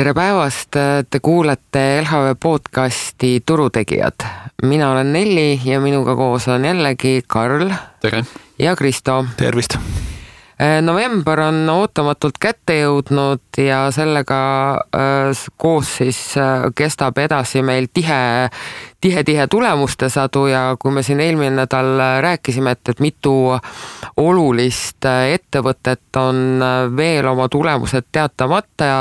Tere päevast, te kuulete LHV podcasti Turutegijad. Mina olen Nelli ja minuga koos on jällegi Karl. Tere. Ja Kristo. Tervist. November on ootamatult kätte jõudnud ja sellega koos siis kestab edasi meil tihe tulemuste sadu ja kui me siin eelmine nädal rääkisime, et mitu olulist ettevõtet on veel oma tulemused teatamata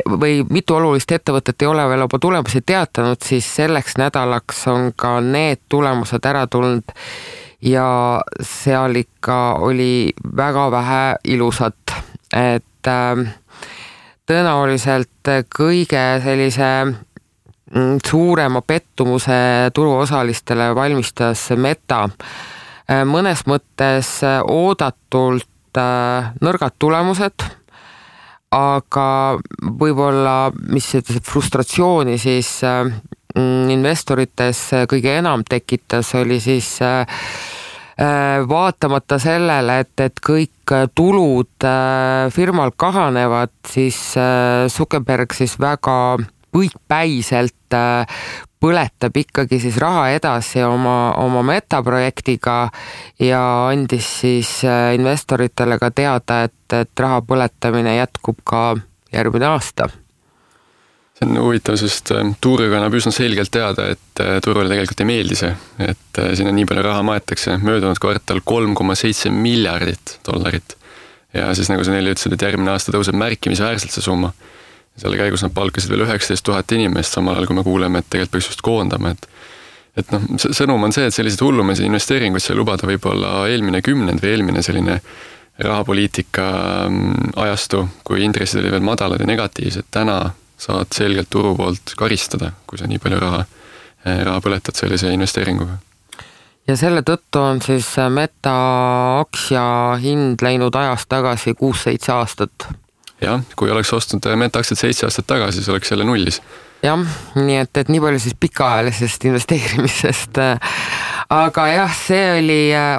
või mitu olulist ettevõtet ei ole veel oma tulemusi teatanud, siis selleks nädalaks on ka need tulemused ära tulnud ja seal ikka oli väga vähe ilusat, et tõenäoliselt kõige sellise suurema pettumuse turuosalistele valmistas Meta. Mõnes mõttes oodatult nõrgad tulemused, aga võib-olla mis frustratsiooni siis investorites kõige enam tekitas, oli siis vaatamata sellele, et kõik tulud firmal kahanevad, siis Zuckerberg siis väga põikpäiselt põletab ikkagi siis raha edasi oma metaprojektiga ja andis siis investoritele ka teada, et raha põletamine jätkub ka järgmine aasta. See on huvitav, sest tuuriga annab üsna selgelt teada, et turule tegelikult ei meeldi see, et sinna nii palju raha maetakse. Möödunud kvartal $3,7 miljardit. Ja siis nagu sa neile ütlesid, et järgmine aasta tõuseb märkimisväärselt see summa. Selle käigus nad palkasid veel 19 000 inimest, samal ajal kui me kuuleme, et tegelikult peaks just koondama. Et sõnum on see, et sellised hullumeid investeeringuid sai lubada võib-olla eelmine kümnend või eelmine selline rahapoliitika ajastu, kui intressid oli veel madalad ja negatiivsed. Täna saad selgelt turu poolt karistada, kui sa nii palju raha põletad sellise investeeringuga. Ja selle tõttu on siis Meta aktsia hind läinud ajast tagasi 6-7 aastat. Jah, kui oleks ostnud Meta aktsiat 7 aastat tagasi, siis oleks jälle nullis. Jah, nii et nii palju siis pikaajalisest investeerimisest. Aga jah, see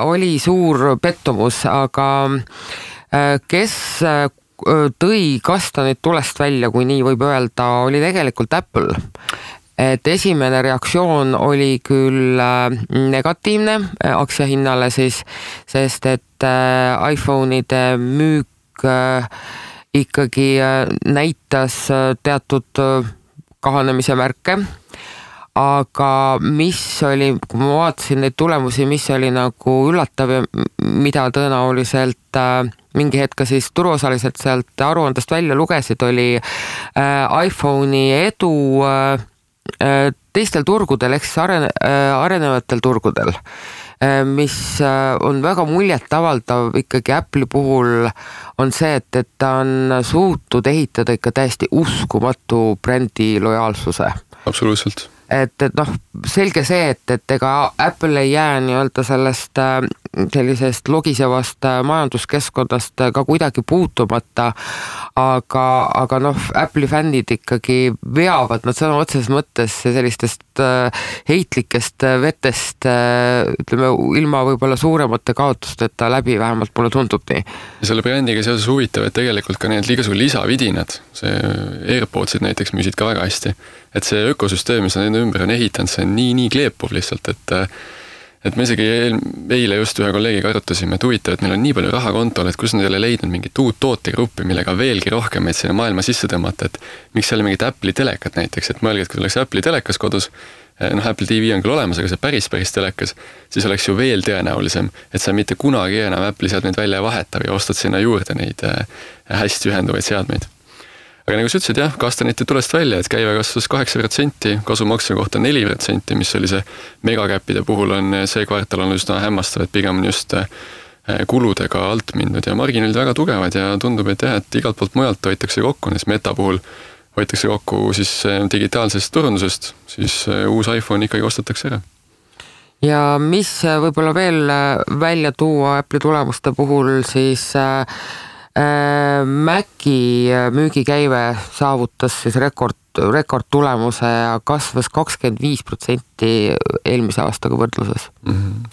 oli suur pettumus, aga kes tõi kastanid tulest välja, kui nii võib öelda, oli tegelikult Apple. Et esimene reaktsioon oli küll negatiivne aktsiahinnale siis, sest et iPhone'ide müük ikkagi näitas teatud kahanemise märke, aga mis oli, kui ma vaatasin neid tulemusi, mis oli nagu üllatav ja mida tõenäoliselt mingi hetk siis turuosaliselt sealt aruandest välja lugesid, oli iPhone'i edu teistel turgudel, ehk siis arenevatel turgudel, mis on väga muljetavaldav ikkagi Apple'i puhul, on see, et ta on suutnud ehitada ikka täiesti uskumatu brändi lojaalsuse. Absoluutselt. Et selge see, et ega Apple ei jää nii-öelda sellest sellisest logisevast majanduskeskkonnast ka kuidagi puutumata, aga Apple'i fännid ikkagi veavad nad sõna otseses mõttes sellistest heitlikest vetest, ütleme, ilma võib-olla suuremate kaotusteta läbi, vähemalt mulle tundub nii. Ja selle brändiga seoses huvitav, et tegelikult ka need igasugused lisavidinad, see AirPodsid näiteks müüsid ka väga hästi, et see ökosüsteem, mis nende ümber on ehitanud, see on nii kleepuv lihtsalt, et me isegi eile just ühe kolleegiga arutasime, et huvitav, et neil on nii palju raha kontol, et kus nad ei ole leidnud mingit uut tootegruppi, millega veelgi rohkem sinna maailma sisse tõmmata, et miks seal mingit Apple'i telekat näiteks, et mõelge, et kui oleks Apple'i telekas kodus, Apple TV on küll olemas, aga see päris telekas, siis oleks ju veel tõenäolisem, et sa mitte kunagi enam Apple'i seadmeid välja vaheta või ostad sinna juurde neid hästi ühenduvaid seadmeid. Aga nagu sa ütlesid, jah, kastanite tulest välja, et käive kasvas 8%, kasumaksja kohta 4%, mis oli see megakäppide puhul on see kvartal on üsna hämmastav, et pigem on just kuludega alt mindud ja marginaalid väga tugevad ja tundub, et jah, et igalt poolt mujalt hoitakse kokku, nes Meta puhul hoitakse kokku siis digitaalsest turundusest, siis uus iPhone ikkagi ostetakse ära. Ja mis võib-olla veel välja tuua Apple'i tulemuste puhul, siis Maci müügikäive saavutas siis rekordtulemuse ja kasvas 25% eelmise aastaga võrdluses.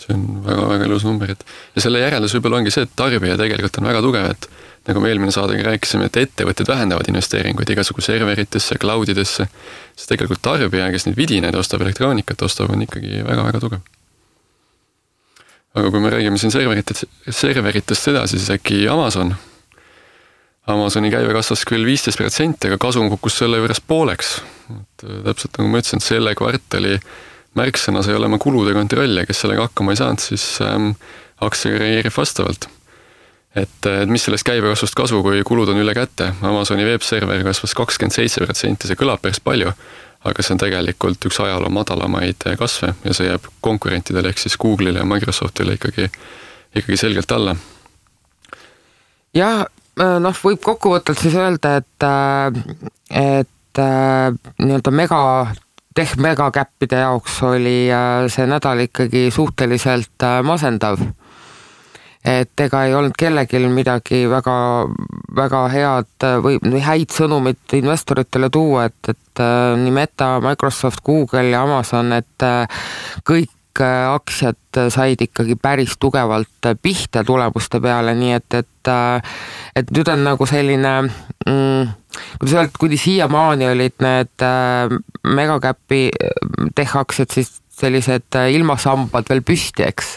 See on väga-väga ilus number. Ja selle järeldus võib-olla ongi see, et tarbija tegelikult on väga tugev, et nagu me eelmine saadegi rääkisime, et ettevõtted vähendavad investeeringuid igasugu serveritesse, cloudidesse, siis tegelikult tarbija, kes neid vidinaid ostab, elektroonikat ostab, on ikkagi väga-väga tugev. Aga kui me räägime siin serveritest edasi, siis äkki Amazoni käive kasvas küll 15%, aga kasum kukkus selle juures pooleks. Et täpselt nagu ma ütlesin, et selle kvartali märksõnas ei ole oma kulude kontrolli, kes sellega hakkama ei saanud, siis aktsia reageerib vastavalt. Et mis sellest käibekasvust kasu, kui kulud on üle kätte? Amazoni webserver kasvas 27%, see kõlab päris palju, aga see on tegelikult üks ajaloo madalamaid kasve ja see jääb konkurentidele ehk siis Google'ile ja Microsoftile ikkagi selgelt alla. Ja võib kokkuvõttelt siis öelda, et nii-öelda megakäppide jaoks oli see nädal ikkagi suhteliselt masendav. Et ega ei olnud kellegil midagi väga head või häid sõnumit investoritele tuua, et nii Meta, Microsoft, Google ja Amazon, et kõik aktsiad said ikkagi päris tugevalt pihta tulemuste peale, nii et nüüd on nagu selline, kuni siiamaani olid need megakäpi tech-aktsiad siis sellised ilmasambad veel püsti, eks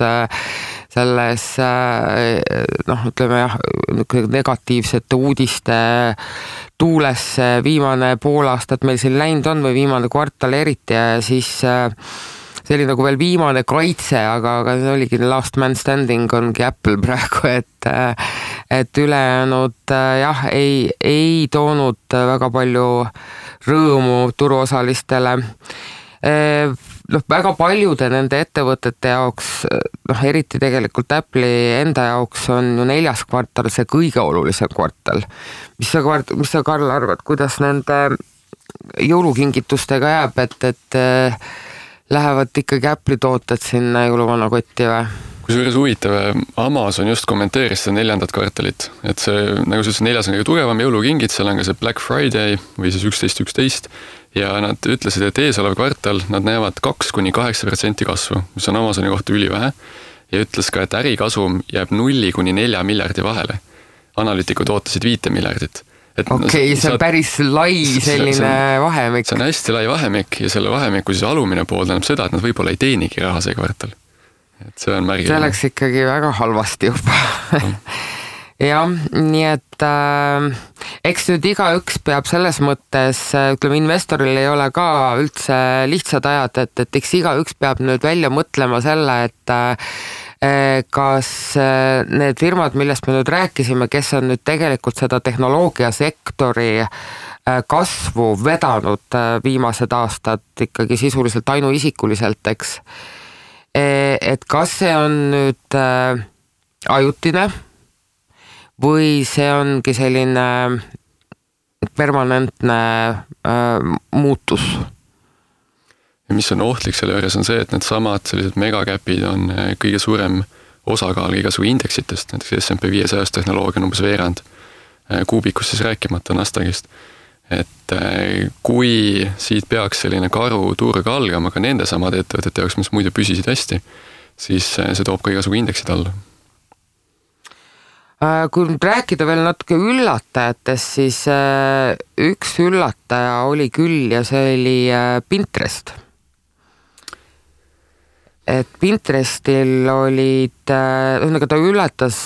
selles ütleme jah, negatiivsete uudiste tuules viimane pool aastat meil siin läinud on või viimane kvartal eriti ja siis see oli nagu veel viimane kaitse, aga see oligi last man standing ongi Apple praegu, et ülejäänud jah, ei toonud väga palju rõõmu turuosalistele. Väga paljude nende ettevõtete jaoks, eriti tegelikult Apple'i enda jaoks on ju 4. kvartal see kõige olulisem kvartal. Mis sa Karl arvad, kuidas nende jõulukingitustega jääb, et lähevad ikkagi Apple'i tooted sinna jõuluvana kotti või? Kusjuures huvitav, Amazon just kommenteeris seda 4. kvartalit, et see, nagu sa ütlesid, 4. on kõige tugevam jõulukingid, seal on ka see Black Friday või siis 11.11 ja nad ütlesid, et eesolev kvartal nad näevad 2-8% kasvu, mis on Amazoni kohta ülivähe ja ütles ka, et ärikasum jääb 0-4 miljardi vahele. Analüütikud ootasid 5 miljardit. Okei, see on päris lai selline vahemik. See on hästi lai vahemik ja selle vahemiku siis alumine pool tähendab seda, et nad võib-olla ei teenigi raha see kvartal. Et see on märgiline. See läks ikkagi väga halvasti juba. Jah, nii et eks nüüd igaüks peab selles mõttes, ütleme, investoril ei ole ka üldse lihtsad ajad, et eks igaüks peab nüüd välja mõtlema selle, et kas need firmad, millest me nüüd rääkisime, kes on nüüd tegelikult seda tehnoloogiasektori kasvu vedanud viimased aastad ikkagi sisuliselt ainuisikuliselt, eks. Et kas see on nüüd ajutine või see ongi selline permanentne muutus? Ja mis on ohtlik selle juures on see, et need samad sellised megakäpid on kõige suurem osakaal igasugu indeksitest, näiteks S&P 500 tehnoloogia on umbes veerand, kuubikust siis rääkimata Nasdaqist. Et kui siit peaks selline karu turg algama ka nende samade ettevõtete jaoks, mis muidu püsisid hästi, siis see toob ka igasugu indeksid alla. Kui nüüd rääkida veel natuke üllatajatest, siis üks üllataja oli küll ja see oli Pinterest. Et Pinterestil olid, ta ületas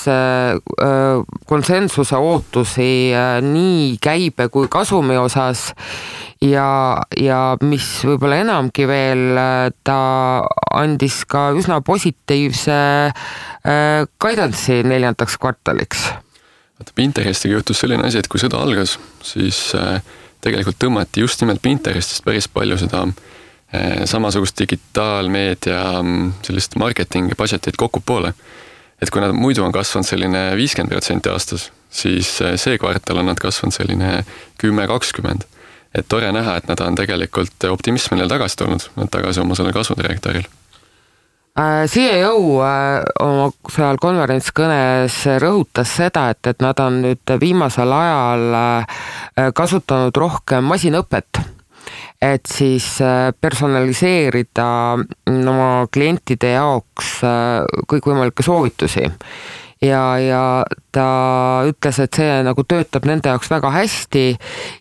konsensuse ootusi nii käibe kui kasumi osas ja mis võib-olla enamgi veel, ta andis ka üsna positiivse guidance'i 4. kvartaliks. Pinterestiga juhtus selline asi, et kui sõda algas, siis tegelikult tõmmati just nimelt Pinterestist päris palju seda samasugust digitaalmeedia sellist marketing budgetit kokku poole. Et kui nad muidu on kasvanud selline 50% aastas, siis see kvartal on nad kasvanud selline 10-20. Et tore näha, et nad on tegelikult optimism neil tagasi tulnud, nad tagasi oma selle kasvudirektoril. CEO oma seal konverentskõnes rõhutas seda, et nad on nüüd viimasel ajal kasutanud rohkem masinõpet, et siis personaliseerida oma klientide jaoks kõikvõimalikke soovitusi. ja ta ütles, et see nagu töötab nende jaoks väga hästi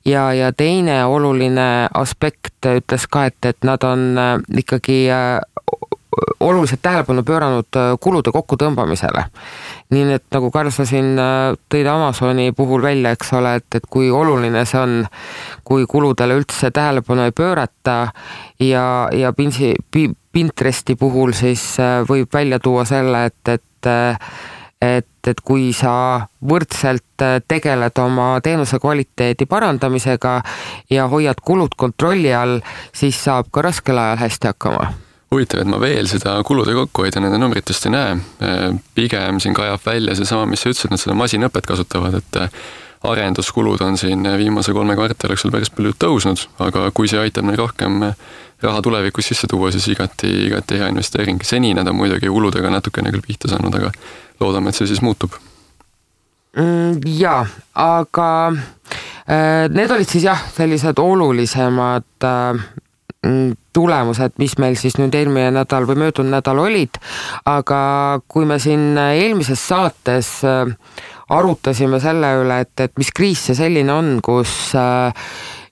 ja teine oluline aspekt ütles ka, et nad on ikkagi oluliselt tähelepanu pööranud kulude kokkutõmbamisele. Nii et nagu Karl, sa siin tõid Amazoni puhul välja, eks ole, et kui oluline see on, kui kuludele üldse tähelepanu ei pöörata ja Pinteresti puhul siis võib välja tuua selle, et kui sa võrdselt tegeled oma teenuse kvaliteedi parandamisega ja hoiad kulud kontrolli all, siis saab ka raskel ajal hästi hakkama. Huvitav, et ma veel seda kulude kokkuhoida nende numbritest ei näe. Pigem siin kajab välja see sama, mis sa ütlesid, nad seda masinõpet kasutavad, et arenduskulud on siin viimase 3 kvartali jooksul päris palju tõusnud, aga kui see aitab neil rohkem raha tulevikus sisse tuua, siis igati hea investeering. Seni nad on muidugi kuludega natukene küll pihta saanud, aga loodame, et see siis muutub. Jaa, aga need olid siis sellised olulisemad tulemused, mis meil siis nüüd eelmine nädal või möödunud nädal olid, aga kui me siin eelmises saates arutasime selle üle, et mis kriis see selline on, kus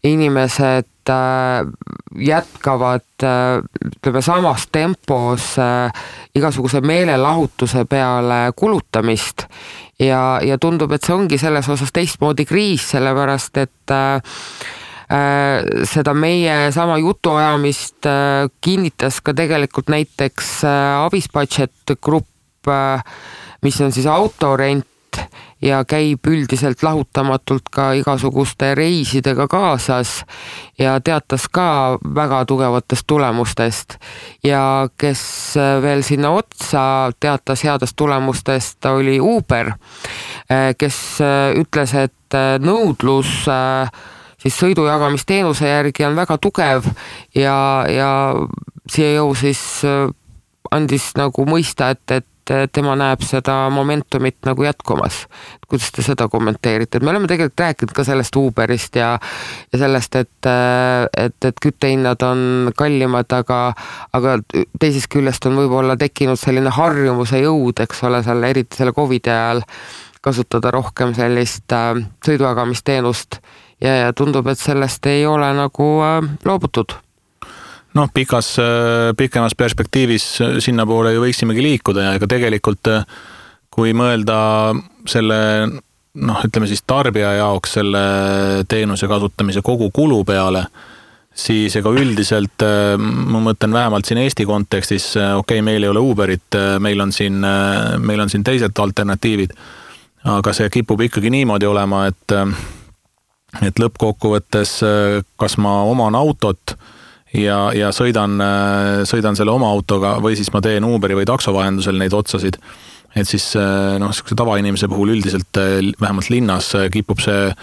inimesed jätkavad ütleme samas tempos igasuguse meelelahutuse peale kulutamist ja tundub, et see ongi selles osas teistmoodi kriis, sellepärast et seda meie sama jutuajamist kinnitas ka tegelikult näiteks Avisbudget Grupp, mis on siis autorent ja käib üldiselt lahutamatult ka igasuguste reisidega kaasas ja teatas ka väga tugevatest tulemustest ja kes veel sinna otsa teatas headest tulemustest, oli Uber, kes ütles, et nõudlus siis sõidujagamisteenuse järgi on väga tugev ja CEO siis andis nagu mõista, et tema näeb seda momentumit nagu jätkumas. Kuidas te seda kommenteerite? Me oleme tegelikult rääkinud ka sellest Uberist ja sellest, et küttehinnad on kallimad, aga teisest küljest on võib-olla tekkinud selline harjumuse jõud, eks ole, eriti selle COVID – ajal kasutada rohkem sellist sõidujagamisteenust ja tundub, et sellest ei ole nagu loobutud. Pikemas perspektiivis sinna poole ju võiksimegi liikuda ja ega tegelikult kui mõelda selle, ütleme siis tarbija jaoks selle teenuse kasutamise kogu kulu peale, siis ega üldiselt ma mõtlen vähemalt siin Eesti kontekstis, meil ei ole Uberit, meil on siin teised alternatiivid, aga see kipub ikkagi niimoodi olema, et lõppkokkuvõttes kas ma oman autot ja sõidan selle oma autoga või siis ma teen Uberi või takso vahendusel neid otsasid, et siis sellise tavainimese puhul üldiselt vähemalt linnas kipub see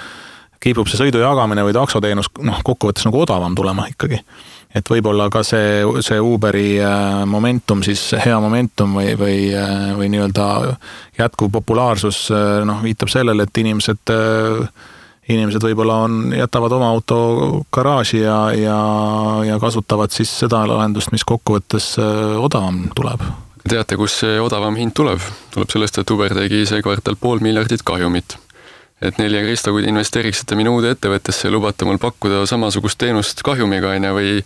sõidu jagamine või taksoteenus kokkuvõttes nagu odavam tulema ikkagi. Et võib-olla ka see Uberi momentum, siis hea momentum või nii-öelda jätkuv populaarsus viitab sellele, et inimesed võib-olla jätavad oma auto garaaži ja kasutavad siis seda lahendust, mis kokkuvõttes odavam tuleb. Teate, kus see odavam hind tuleb? Tuleb sellest, et Uber tegi see kvartal 500 miljonit kahjumit. Et Nelja Kristo, kui te investeeriksite minu uude ettevõttesse ja lubate mul pakkuda samasugust teenust kahjumiga või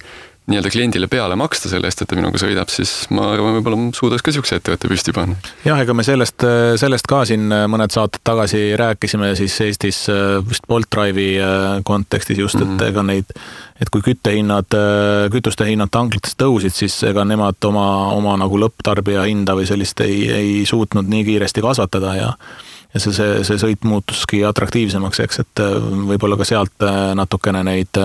nii-öelda kliendile peale maksta selle eest, et ta minuga sõidab, siis ma arvan, võib-olla suudaks ka siukse ettevõtte püsti panna. Jah, ega me sellest ka siin mõned saated tagasi rääkisime siis Eestis vist Bolt Drive'i kontekstis just, et ega et kui kütuste hinnad tanklates tõusid, siis ega nemad oma nagu lõpptarbija hinda või sellist ei suutnud nii kiiresti kasvatada ja see sõit muutuski atraktiivsemaks, eks, et võib-olla ka sealt natukene neid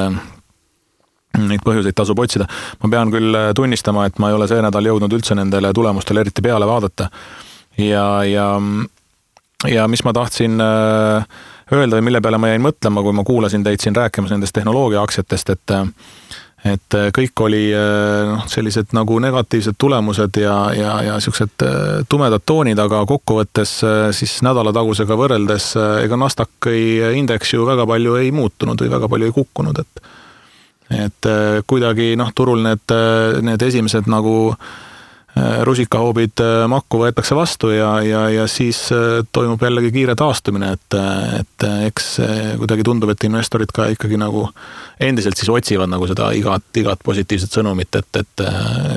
põhjuseid tasub otsida. Ma pean küll tunnistama, et ma ei ole see nädal jõudnud üldse nendele tulemustele eriti peale vaadata. Ja mis ma tahtsin öelda või mille peale ma jäin mõtlema, kui ma kuulasin teid siin rääkimas nendest tehnoloogia aktsiatest, et kõik oli sellised nagu negatiivsed tulemused ja siuksed tumedad toonid, aga kokkuvõttes siis nädalatagusega võrreldes ega Nasdaqi indeks ju väga palju ei muutunud või väga palju ei kukkunud, et kuidagi turul need esimesed nagu rusikahoobid makku võetakse vastu ja siis toimub jällegi kiire taastumine, et eks kuidagi tundub, et investorid ka ikkagi nagu endiselt siis otsivad nagu seda igat positiivset sõnumit, et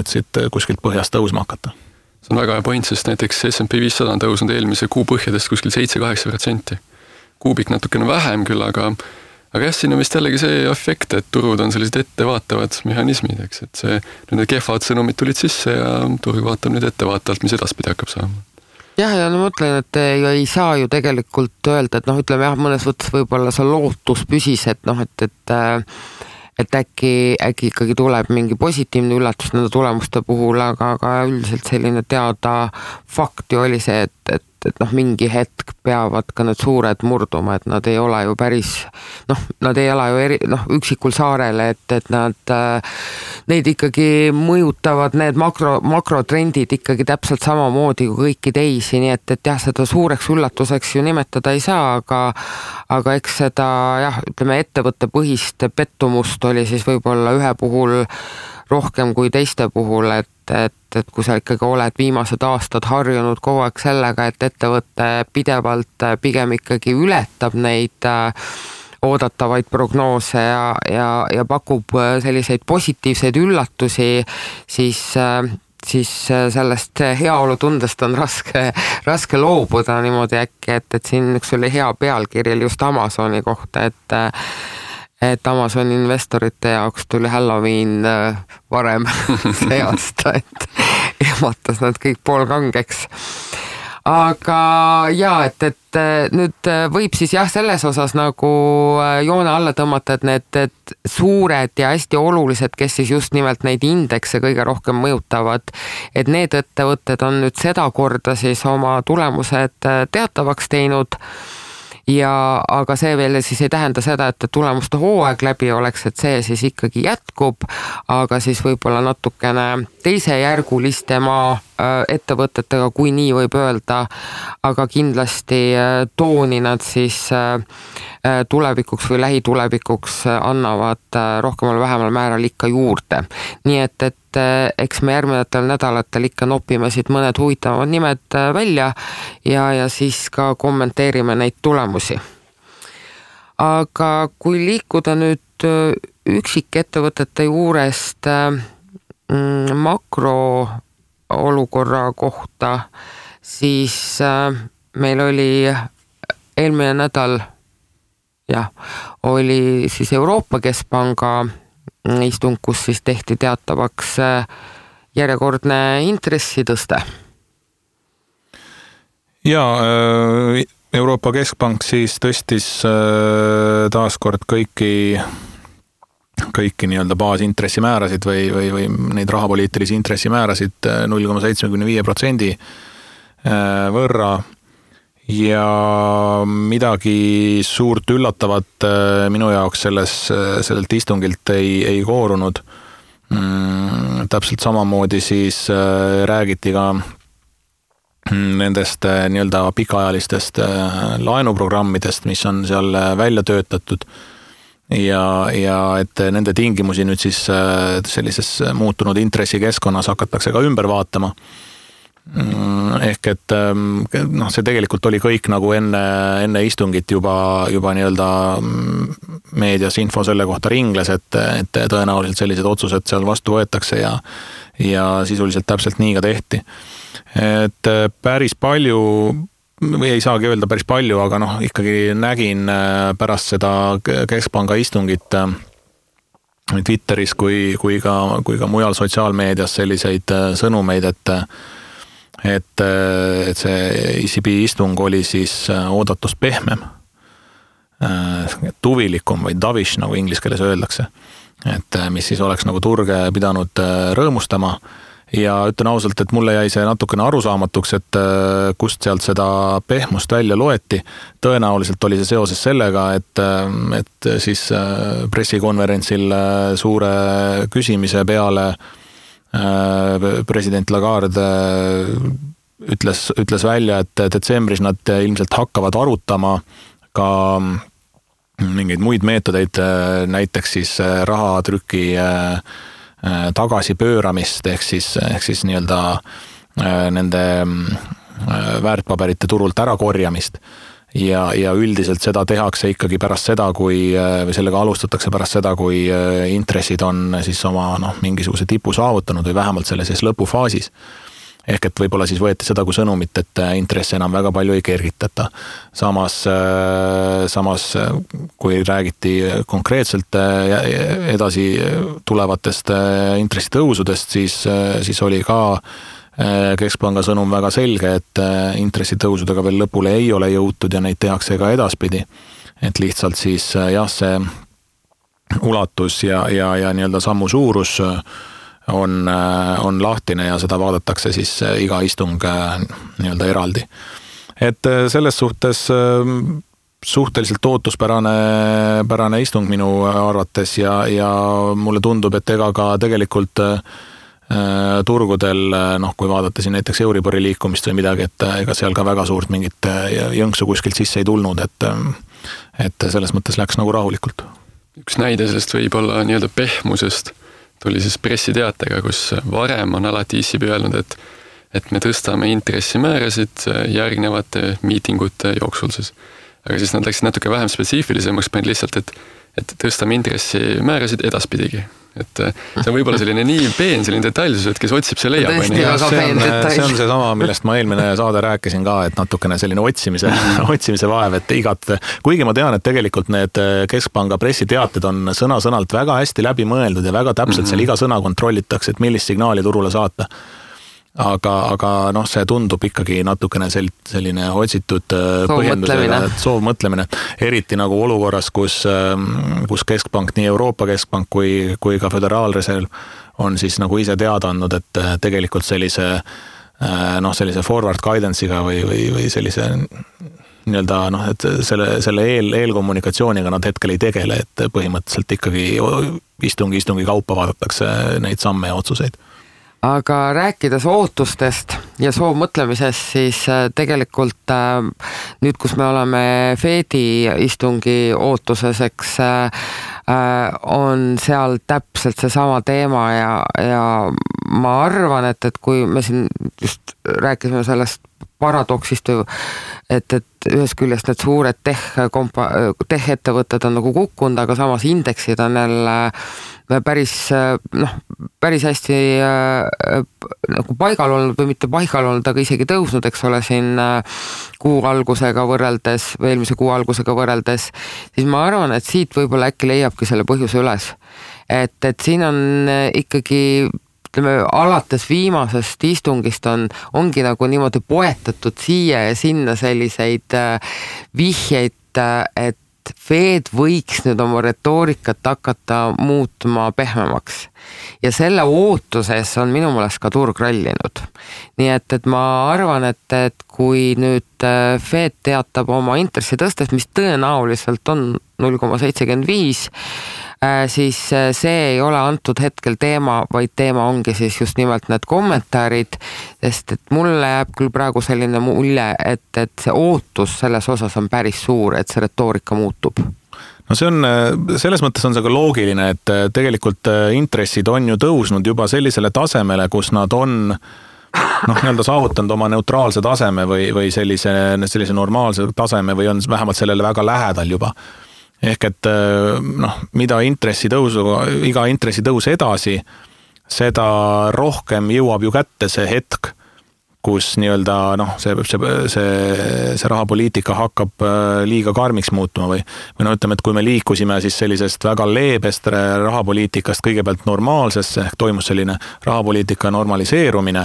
siit kuskilt põhjast tõusma hakata. See on väga hea point, sest näiteks S&P 500 on tõusnud eelmise kuu põhjadest kuskil 7-8%. Kuubik natukene vähem küll, aga jah, siin on vist jällegi see efekt, et turud on sellised ettevaatavad mehhanismid, eks, et need kehvad sõnumid tulid sisse ja turg vaatab nüüd ettevaatavalt, mis edaspidi hakkab saama. Jah, ja ma mõtlen, et ei saa ju tegelikult öelda, et ütleme jah, mõnes võttes võib-olla see lootus püsis, et äkki ikkagi tuleb mingi positiivne üllatus nende tulemuste puhul, aga üldiselt selline teada fakti oli see, et mingi hetk peavad ka need suured murduma, et nad ei ole ju päris, nad ei ela ju üksikul saarele, et neid ikkagi mõjutavad need makrotrendid ikkagi täpselt samamoodi kui kõiki teisi, nii et jah, seda suureks üllatuseks ju nimetada ei saa, aga eks seda jah, ütleme ettevõtte põhist pettumust oli siis võib-olla ühe puhul rohkem kui teiste puhul, et kui sa ikkagi oled viimased aastad harjunud kogu aeg sellega, et ettevõte pidevalt pigem ikkagi ületab neid oodatavaid prognoose ja pakub selliseid positiivseid üllatusi, siis sellest heaolutundest on raske loobuda niimoodi äkki, et siin üks oli hea pealkirjel just Amazoni kohta, et Amazoni investorite jaoks tuli Halloween varem see aasta, et ehmatas nad kõik poolkangeks. Aga jaa, et nüüd võib siis jah, selles osas nagu joone alla tõmmata, et need suured ja hästi olulised, kes siis just nimelt neid indekse kõige rohkem mõjutavad, et need ettevõtted on nüüd sedakorda siis oma tulemused teatavaks teinud. Aga see veel siis ei tähenda seda, et tulemuste hooaeg läbi oleks, et see siis ikkagi jätkub, aga siis võib-olla natukene teisejärgulistema ettevõtetega, kui nii võib öelda, aga kindlasti tooni nad siis tulevikuks või lähitulevikuks annavad rohkemal vähemal määral ikka juurde. Nii et eks me järgnevatel nädalatel ikka nopime siit mõned huvitavamad nimed välja ja siis ka kommenteerime neid tulemusi. Aga kui liikuda nüüd üksikettevõtete juurest makroolukorra kohta, siis meil oli eelmine nädal oli siis Euroopa Keskpanga istung, kus siis tehti teatavaks järjekordne intressitõste. Ja Euroopa Keskpank siis tõstis taaskord kõiki nii-öelda baasintressimäärasid või neid rahapoliitilisi intressimäärasid 0,75% võrra. Ja midagi suurt üllatavat minu jaoks sellelt istungilt ei koorunud. Täpselt samamoodi siis räägiti ka nendest nii-öelda pikaajalistest laenuprogrammidest, mis on seal välja töötatud ja et nende tingimusi nüüd siis sellises muutunud intressikeskkonnas hakatakse ka ümber vaatama. Ehk et see tegelikult oli kõik nagu enne istungit juba nii-öelda meedias info selle kohta ringles, et tõenäoliselt sellised otsused seal vastu võetakse ja sisuliselt täpselt nii ka tehti. Et päris palju, või ei saagi öelda päris palju, aga ikkagi nägin pärast seda Keskpanga istungit Twitteris kui ka mujal sotsiaalmeedias selliseid sõnumeid, et see ECB istung oli siis oodatust pehmem, tuvilikum või dovish, nagu inglise keeles öeldakse, et mis siis oleks nagu turge pidanud rõõmustama ja ütlen ausalt, et mulle jäi see natukene arusaamatuks, et kust sealt seda pehmust välja loeti. Tõenäoliselt oli see seoses sellega, et siis pressikonverentsil suure küsimise peale president Lagarde ütles välja, et detsembris nad ilmselt hakkavad arutama ka mingeid muid meetodeid, näiteks siis rahatrüki tagasipööramist ehk siis nii-öelda nende väärtpaberite turult ära korjamist. Ja üldiselt seda tehakse ikkagi pärast seda, või sellega alustatakse pärast seda, kui intressid on siis oma mingisuguse tipu saavutanud või vähemalt selle siis lõpufaasis. Ehk et võib-olla siis võeti seda kui sõnumit, et intresse enam väga palju ei kergitata. Samas kui räägiti konkreetselt edasi tulevatest intressitõusudest, siis oli ka Keskpanga sõnum väga selge, et intressitõusudega veel lõpule ei ole jõutud ja neid tehakse ka edaspidi. Et lihtsalt siis see ulatus ja nii-öelda sammu suurus on lahtine ja seda vaadatakse siis iga istung nii-öelda eraldi. Et selles suhtes suhteliselt ootuspärane istung minu arvates ja mulle tundub, et ega ka tegelikult turgudel, kui vaadata siin näiteks Euribori liikumist või midagi, et ega seal ka väga suurt mingit jõnksu kuskilt sisse ei tulnud, et selles mõttes läks nagu rahulikult. Üks näide sellest võib olla nii-öelda pehmusest tuli siis pressiteatega, kus varem on alati ISIB öelnud, et me tõstame intressimäärasid järgnevate miitingute jooksul siis. Aga siis nad läksid natuke vähem spetsiifilisemaks, panid lihtsalt, et tõstame intressimäärasid edaspidigi. Et see on võib-olla selline nii peen, selline detailsus, et kes otsib, see leiab. See on see sama, millest ma eelmine saade rääkisin ka, et natukene selline otsimise vaev, et kuigi ma tean, et tegelikult need Keskpanga pressiteated on sõna-sõnalt väga hästi läbi mõeldud ja väga täpselt seal iga sõna kontrollitakse, et millist signaali turule saata. Aga see tundub ikkagi natukene selline otsitud põhjendusega, soovmõtlemine, eriti nagu olukorras, kus Keskpank, nii Euroopa Keskpank kui ka Föderaalreserv on siis nagu ise teada andnud, et tegelikult sellise forward guidance'iga või sellise nii-öelda, et selle eelkommunikatsiooniga nad hetkel ei tegele, et põhimõtteliselt ikkagi istungi kaupa vaadatakse neid samme ja otsuseid. Aga rääkides ootustest ja soovmõtlemisest, siis tegelikult nüüd, kus me oleme Fedi istungi ootuses, eks on seal täpselt see sama teema ja ma arvan, et kui me siin just rääkisime sellest paradoksist, et ühes küljest need suured tech-ettevõtted on nagu kukkunud, aga samas indeksid on jälle päris hästi nagu paigal olnud või mitte paigal olnud, aga isegi tõusnud, eks ole, siin kuu algusega võrreldes või eelmise kuu algusega võrreldes, siis ma arvan, et siit võib-olla äkki leiabki selle põhjuse üles. Et siin on ikkagi alates viimasest istungist ongi nagu niimoodi poetatud siia ja sinna selliseid vihjeid, et Fed võiks nüüd oma retoorikat hakata muutma pehmemaks. Ja selle ootuses on minu meelest ka turg rallinud. Nii et ma arvan, et kui nüüd Fed teatab oma intressi tõstest, mis tõenäoliselt on 0,75, siis see ei ole antud hetkel teema, vaid teema ongi siis just nimelt need kommentaarid, sest et mulle jääb küll praegu selline mulje, et see ootus selles osas on päris suur, et see retoorika muutub. No selles mõttes on see ka loogiline, et tegelikult intressid on ju tõusnud juba sellisele tasemele, kus nad on nii-öelda saavutanud oma neutraalse taseme või sellise normaalse taseme või on vähemalt sellele väga lähedal juba. Ehk et mida iga intressitõus edasi, seda rohkem jõuab ju kätte see hetk, kus nii-öelda see rahapoliitika hakkab liiga karmiks muutuma või ütleme, et kui me liikusime siis sellisest väga leebest rahapoliitikast kõigepealt normaalsesse, ehk toimus selline rahapoliitika normaliseerumine,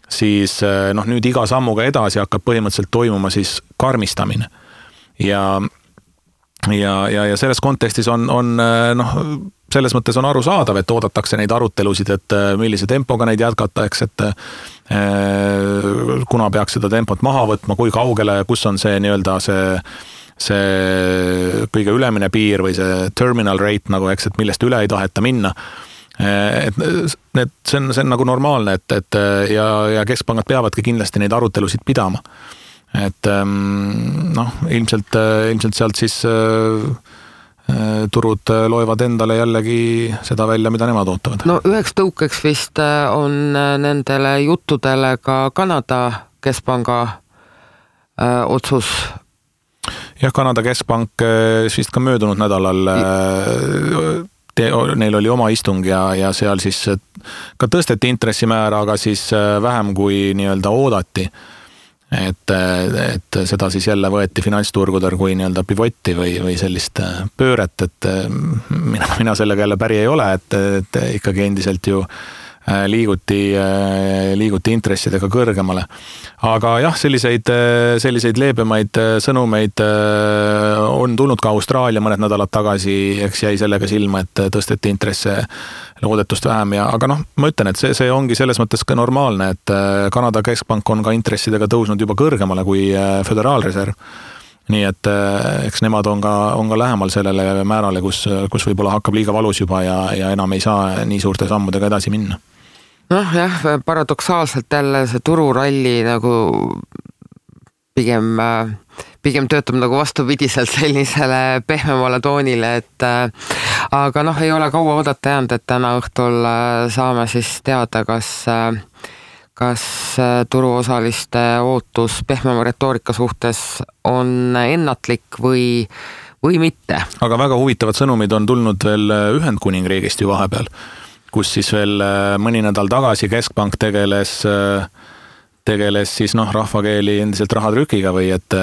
siis nüüd iga sammuga edasi hakkab põhimõtteliselt toimuma siis karmistamine. Ja selles kontekstis on selles mõttes on arusaadav, et oodatakse neid arutelusid, et millise tempoga neid jätkata, eks, et kuna peaks seda tempot maha võtma, kui kaugele, kus on see nii-öelda see kõige ülemine piir või see terminal rate, nagu eks, et millest üle ei taheta minna. See on nagu normaalne, ja keskpangad peavadki kindlasti neid arutelusid pidama. Et ilmselt sealt siis turud loevad endale jällegi seda välja, mida nemad ootavad. No üheks tõukeks vist on nendele juttudele ka Kanada keskpanga otsus. Jah, Kanada keskpank vist ka möödunud nädalal neil oli oma istung ja seal siis ka tõsteti intressimäära, aga siis vähem kui nii-öelda oodati. Et seda siis jälle võeti finantsturgudel kui nii-öelda pivotti või sellist pööret, et mina sellega jälle päri ei ole, et ikkagi endiselt ju liiguti intressidega kõrgemale. Aga jah, selliseid leebemaid sõnumeid on tulnud ka Austraalia mõned nädalad tagasi, eks jäi sellega silma, et tõsteti intresse loodetust vähem aga ma ütlen, et see ongi selles mõttes ka normaalne, et Kanada keskpank on ka intressidega tõusnud juba kõrgemale kui Föderaalreserv. Nii et eks nemad on ka lähemal sellele määrale, kus võib-olla hakkab liiga valus juba ja enam ei saa nii suurte sammudega edasi minna. Jah, paradoksaalselt jälle see tururalli nagu pigem töötab nagu vastupidiselt sellisele pehmemale toonile, et aga ei ole kaua oodata jäänud, et täna õhtul saame siis teada, kas turuosaliste ootus pehmema retoorika suhtes on ennatlik või mitte. Aga väga huvitavad sõnumid on tulnud veel Ühendkuningriigist ju vahepeal, kus siis veel mõni nädal tagasi keskpank tegeles siis rahvakeeli endiselt rahatrükiga või et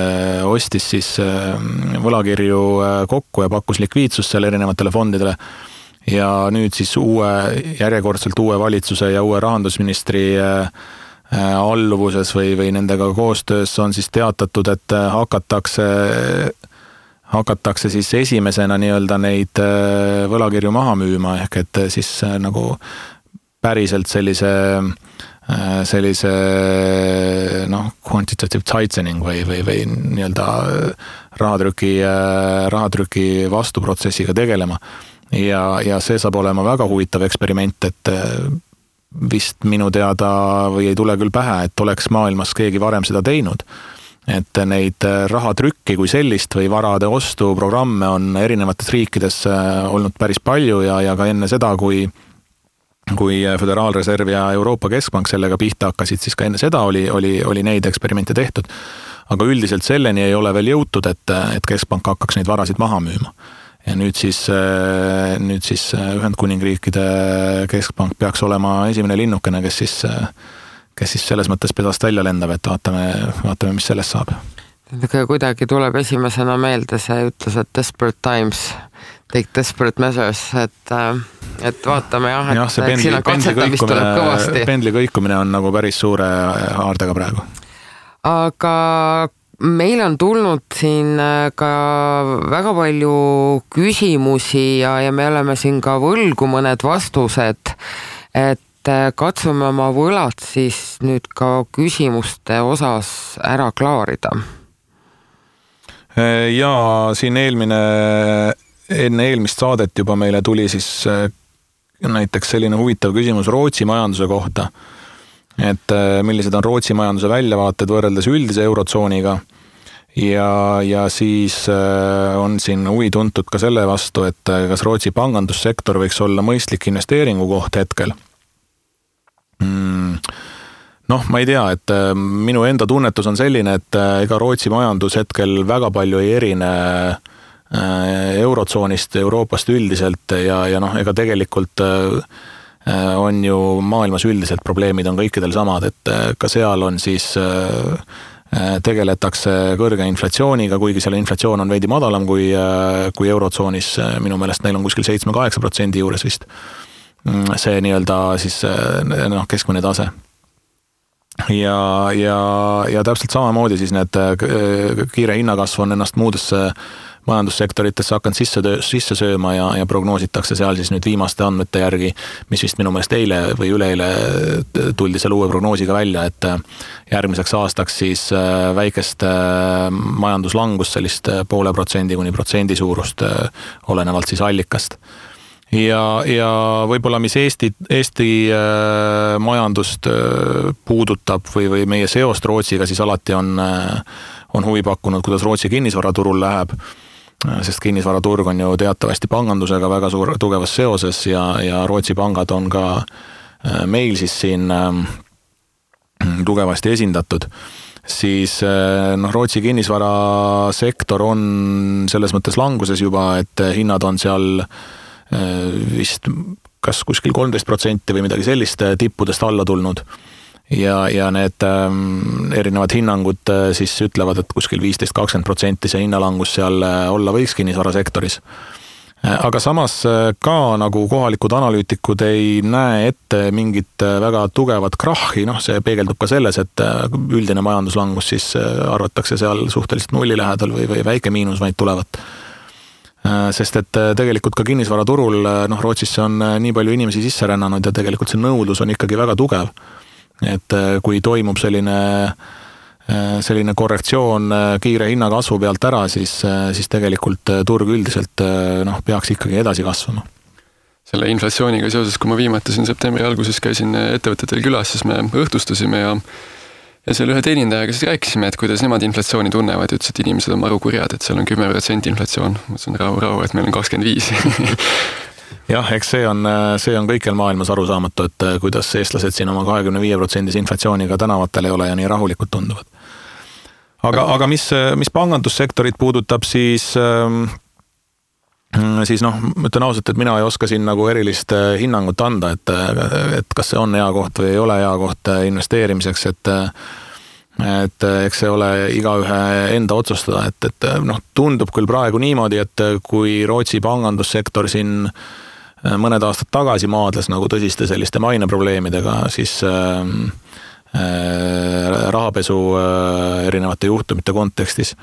ostis siis võlakirju kokku ja pakkus likviidsust seal erinevatele fondidele. Ja nüüd siis järjekordselt uue valitsuse ja uue rahandusministri alluvuses või nendega koostöös on siis teatatud, et hakatakse siis esimesena nii-öelda neid võlakirju maha müüma, ehk et siis nagu päriselt sellise quantitative tightening või nii-öelda rahatrüki vastuprotsessiga tegelema. Ja see saab olema väga huvitav eksperiment, et vist minu teada või ei tule küll pähe, et oleks maailmas keegi varem seda teinud. Et neid rahatrükki kui sellist või varade ostu programme on erinevates riikides olnud päris palju ja ka enne seda, kui Föderaalreserv ja Euroopa Keskpank sellega pihta hakkasid, siis ka enne seda oli neid eksperimente tehtud. Aga üldiselt selleni ei ole veel jõutud, et Keskpank hakkaks neid varasid maha müüma. Ja nüüd siis Ühendkuningriikide Keskpank peaks olema esimene linnukene, kes siis selles mõttes pedast välja lendab, et vaatame, mis sellest saab. Kuidagi tuleb esimesena meelde see ütlus, et desperate times take desperate measures, et vaatame et siin on katsetamist tuleb kõvasti. Pendli kõikumine on nagu päris suure haardega praegu. Aga meil on tulnud siin ka väga palju küsimusi ja me oleme siin ka võlgu mõned vastused, et katsume oma võlad siis nüüd ka küsimuste osas ära klaarida. Ja siin enne eelmist saadet juba meile tuli siis näiteks selline huvitav küsimus Rootsi majanduse kohta, et millised on Rootsi majanduse väljavaated võrreldes üldise eurotsooniga ja siis on siin huvi tuntud ka selle vastu, et kas Rootsi pangandussektor võiks olla mõistlik investeeringu koht hetkel. Ma ei tea, et minu enda tunnetus on selline, et ega Rootsi majandus hetkel väga palju ei erine eurotsoonist, Euroopast üldiselt ja ega tegelikult on ju maailmas üldiselt probleemid on kõikidel samad, et ka seal on siis tegeletakse kõrge inflatsiooniga, kuigi seal inflatsioon on veidi madalam kui eurotsoonis, minu meelest neil on kuskil 7-8% juures vist see nii-öelda siis keskmine tase. Ja täpselt samamoodi siis need kiire hinnakasv on ennast muudesse majandussektoritesse hakanud sisse sööma ja prognoositakse seal siis nüüd viimaste andmete järgi, mis vist minu meelest eile või üleeile tuldi selle uue prognoosiga välja, et järgmiseks aastaks siis väikest majanduslangust sellist 0,5% kuni 1% suurust olenevalt siis allikast. Ja võib-olla mis Eesti majandust puudutab või meie seost Rootsiga, siis alati on huvi pakkunud, kuidas Rootsi kinnisvaraturul läheb. sest kinnisvaraturg on ju teatavasti pangandusega väga tugevas seoses ja Rootsi pangad on ka meil siis siin tugevasti esindatud, siis Rootsi kinnisvarasektor on selles mõttes languses juba, et hinnad on seal vist kas kuskil 13% või midagi sellist tippudest alla tulnud. Ja need erinevad hinnangud siis ütlevad, et kuskil 15-20% see hinnalangus seal olla võiks kinnisvarasektoris. Aga samas ka nagu kohalikud analüütikud ei näe ette mingit väga tugevat krahhi, see peegeldub ka selles, et üldine majanduslangus siis arvatakse seal suhteliselt nulli lähedal või väike miinus vaid tulevat. Sest et tegelikult ka kinnisvaraturul, Rootsisse on nii palju inimesi sisse rännanud ja tegelikult see nõudlus on ikkagi väga tugev. Et kui toimub selline korrektsioon kiire hinnakasvu pealt ära, siis tegelikult turg üldiselt peaks ikkagi edasi kasvama. Selle inflatsiooniga seoses, kui ma viimati siin septembri alguses käisin ettevõtetel külas, siis me õhtustasime ja seal ühe teenindajaga siis rääkisime, et kuidas nemad inflatsiooni tunnevad ja ütles, et inimesed on maru kurjad, et seal on 10% inflatsioon. Mõtlesin rahu, et meil on 25%. Jah, eks see on kõikjal maailmas arusaamatu, et kuidas eestlased siin oma 25% inflatsiooniga tänavatel ei ole ja nii rahulikult tunduvad. Aga mis pangandussektorit puudutab, siis ütlen ausalt, et mina ei oska siin nagu erilist hinnangut anda, et kas see on hea koht või ei ole hea koht investeerimiseks, et eks see ole igaühe enda otsustada, et tundub küll praegu niimoodi, et kui Rootsi pangandussektor siin mõned aastad tagasi maadles nagu tõsiste selliste maineprobleemidega, siis rahapesu erinevate juhtumite kontekstis,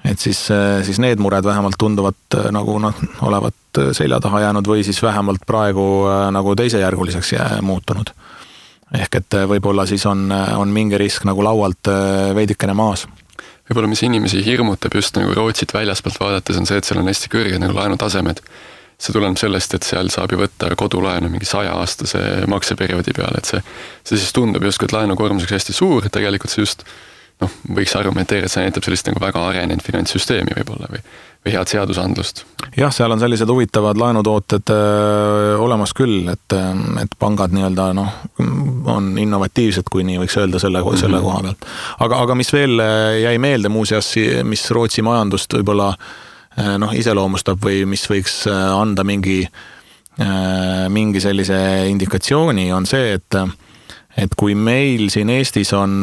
et siis need mured vähemalt tunduvad nagu olevat selja taha jäänud või siis vähemalt praegu nagu teisejärguliseks muutunud. Ehk et võib-olla siis on mingi risk nagu laualt veidikene maas. Võib-olla mis inimesi hirmutab just nagu Rootsit väljaspoolt vaadates on see, et seal on hästi kõrged nagu laenutasemed. See tuleneb sellest, et seal saab ju võtta kodulaenu mingi 100-aastase makseperioodi peale, et see siis tundub justkui, et laenukoormuseks hästi suur, et tegelikult see just võiks argumenteerida, et see näitab sellist nagu väga arenenud finantssüsteemi võib-olla või head seadusandlust. Jah, seal on sellised huvitavad laenutooted olemas küll, et pangad nii-öelda on innovatiivsed, kui nii võiks öelda selle koha pealt. Aga mis veel jäi meelde muuseas, mis Rootsi majandust võib-olla iseloomustab või mis võiks anda mingi sellise indikatsiooni, on see, et kui meil siin Eestis on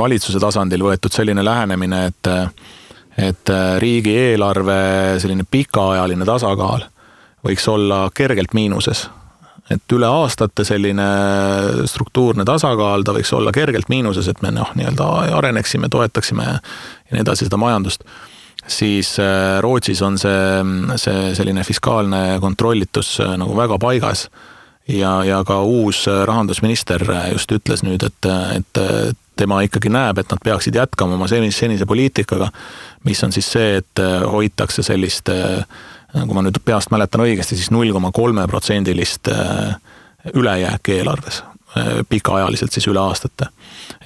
valitsuse tasandil võetud selline lähenemine, et riigieelarve selline pikaajaline tasakaal võiks olla kergelt miinuses. Et üle aastate selline struktuurne tasakaal, ta võiks olla kergelt miinuses, et me nii-öelda areneksime, toetaksime ja nii edasi seda majandust. Siis Rootsis on see selline fiskaalne kontrollitus nagu väga paigas. Ja ka uus rahandusminister just ütles nüüd, et tema ikkagi näeb, et nad peaksid jätkama oma senise poliitikaga, mis on siis see, et hoitakse sellist, nagu ma nüüd peast mäletan õigesti, siis 0,3% ülejääki eelarves, pikaajaliselt siis üle aastate.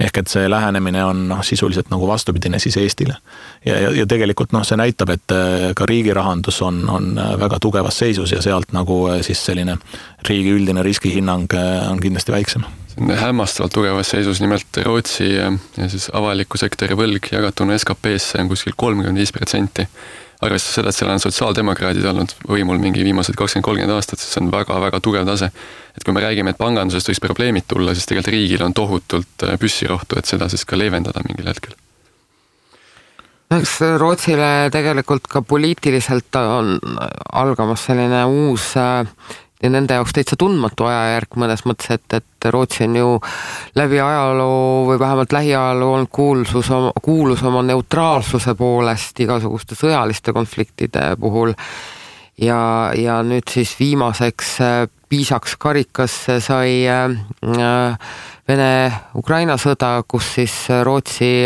Ehk et see lähenemine on sisuliselt nagu vastupidine siis Eestile. Ja tegelikult see näitab, et ka riigi rahandus on väga tugevas seisus ja sealt nagu siis selline riigi üldine riskihinnang on kindlasti väiksem. See on hämmastavalt tugevas seisus, nimelt Rootsi ja siis avaliku sektori võlg jagatuna SKP-sse on kuskil 35%. Arvestades seda, et seal on sotsiaaldemokraadid olnud võimul mingi viimased 20-30 aastat, siis see on väga-väga tugev tase. Et kui me räägime, et pangandusest võiks probleemid tulla, siis tegelikult riigil on tohutult püssirohtu, et seda siis ka leevendada mingil hetkel. Eks Rootsile tegelikult ka poliitiliselt on algamas selline uus ja nende jaoks täitsa tundmatu ajajärk mõnes mõttes, et Rootsi on ju läbi ajaloo või vähemalt lähiajaloo on kuulus oma neutraalsuse poolest igasuguste sõjaliste konfliktide puhul ja nüüd siis viimaseks piisaks karikasse sai Vene-Ukraina sõda, kus siis Rootsi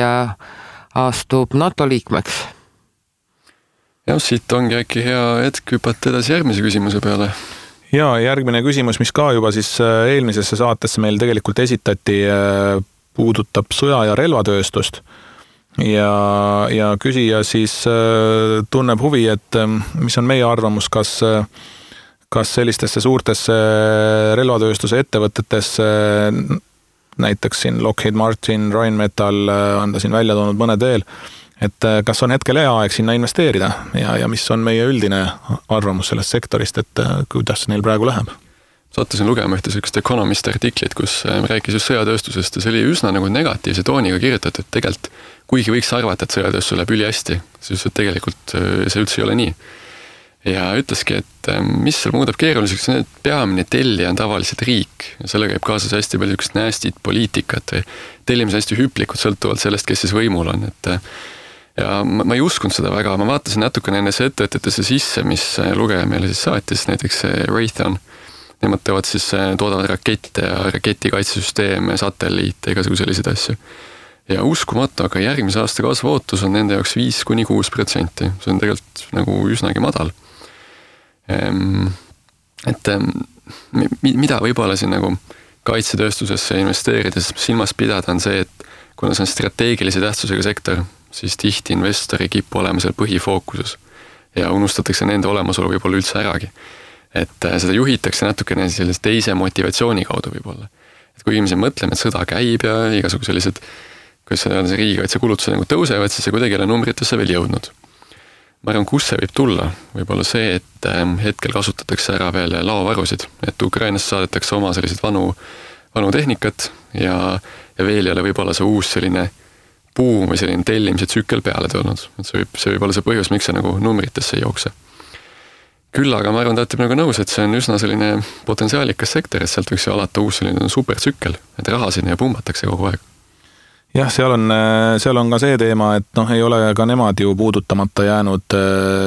astub NATO liikmeks. Ja siit ongi äkki hea hetk hüpata edasi järgmise küsimuse peale. Ja järgmine küsimus, mis ka juba siis eelmisesse saatesse meil tegelikult esitati, puudutab sõja- ja relvatööstust. ja küsija siis tunneb huvi, et mis on meie arvamus, kas sellistesse suurtesse relvatööstuse ettevõtetesse, näiteks siin Lockheed Martin, Rheinmetall on ta siin välja toonud mõned veel, et kas on hetkel hea aeg sinna investeerida ja mis on meie üldine arvamus sellest sektorist, et kuidas neil praegu läheb? Sattusin lugema ühte sellist Economist artiklit, kus rääkis just sõjatööstusest ja see oli üsna nagu negatiivse tooniga kirjutatud, et tegelikult kuigi võiks arvata, et sõjatööstus läheb ülihästi, siis tegelikult see üldse ei ole nii. Ja ütleski, et mis seal muudab keeruliseks, et peamine tellija on tavaliselt riik ja selle käib kaasas hästi palju ükst näästit poliitikat või tellimise hästi hüplikud sõltuvalt sellest, kes siis võimul on. Ja ma ei uskunud seda väga, ma vaatasin natukene nendesse ettevõtetesse sisse, mis lugeja meile siis saatis, näiteks Raytheon. Nemad toodavad rakette ja raketikaitsesüsteeme, satelliite, igasugu selliseid asju. Ja uskumatu, aga järgmise aasta kasvuootus on nende jaoks 5-6%. See on tegelikult nagu üsnagi madal. Et mida võib-olla siin nagu kaitsetööstusesse investeerides silmas pidada on see, et kuna see on strateegilise tähtsusega sektor, siis tihti investori kippu olema seal põhifookuses ja unustatakse nende olemasolu võib-olla üldse äragi. Et seda juhitakse natukene sellise teise motivatsiooni kaudu võib-olla. Et kui inimesed mõtleme, et sõda käib ja igasugu sellised, kuidas see riigikaitse kulutused nagu tõusevad, siis see kuidagi ei ole numbritesse veel jõudnud. Ma arvan, kus see võib tulla, võib-olla see, et hetkel kasutatakse ära veel laovarusid, et Ukrainast saadetakse oma sellised vanu tehnikat ja veel ei ole võib-olla see uus selline buum või selline tellimise tsükkel peale tulnud. Et see võib olla see põhjus, miks see nagu numbritesse ei jookse. Küll aga ma arvan, ta nagu nõus, et see on üsna selline potentsiaalikas sektor, et sealt võiks ju alata uus selline supertsükkel, et raha sinna pumbatakse kogu aeg. Jah, seal on ka see teema, et ei ole ka nemad ju puudutamata jäänud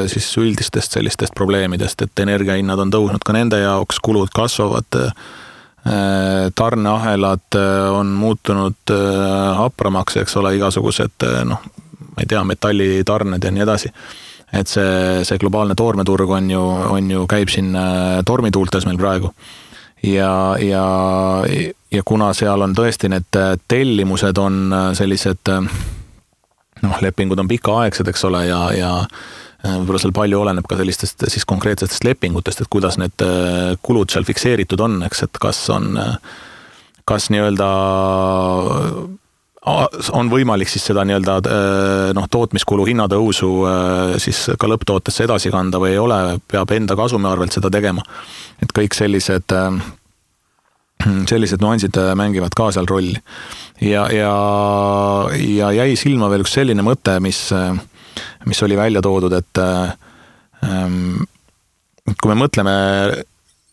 siis üldistest sellistest probleemidest, et energiahinnad on tõusnud ka nende jaoks, kulud kasvavad, tarneahelad on muutunud hapramaks, eks ole, igasugused, ma ei tea, metallitarned ja nii edasi. Et see globaalne toormeturg on ju käib siin tormituultes meil praegu. Ja kuna seal on tõesti need tellimused on sellised, lepingud on pikaaegsed, eks ole, ja võib-olla seal palju oleneb ka sellistest siis konkreetsetest lepingutest, et kuidas need kulud seal fikseeritud on, eks, et kas nii-öelda on võimalik siis seda nii-öelda tootmiskulu hinnatõusu siis ka lõpptootesse edasi kanda või ei ole, peab enda kasumi arvelt seda tegema. Et kõik sellised nuansid mängivad ka seal rolli. Ja jäi silma veel üks selline mõte, mis oli välja toodud, et kui me mõtleme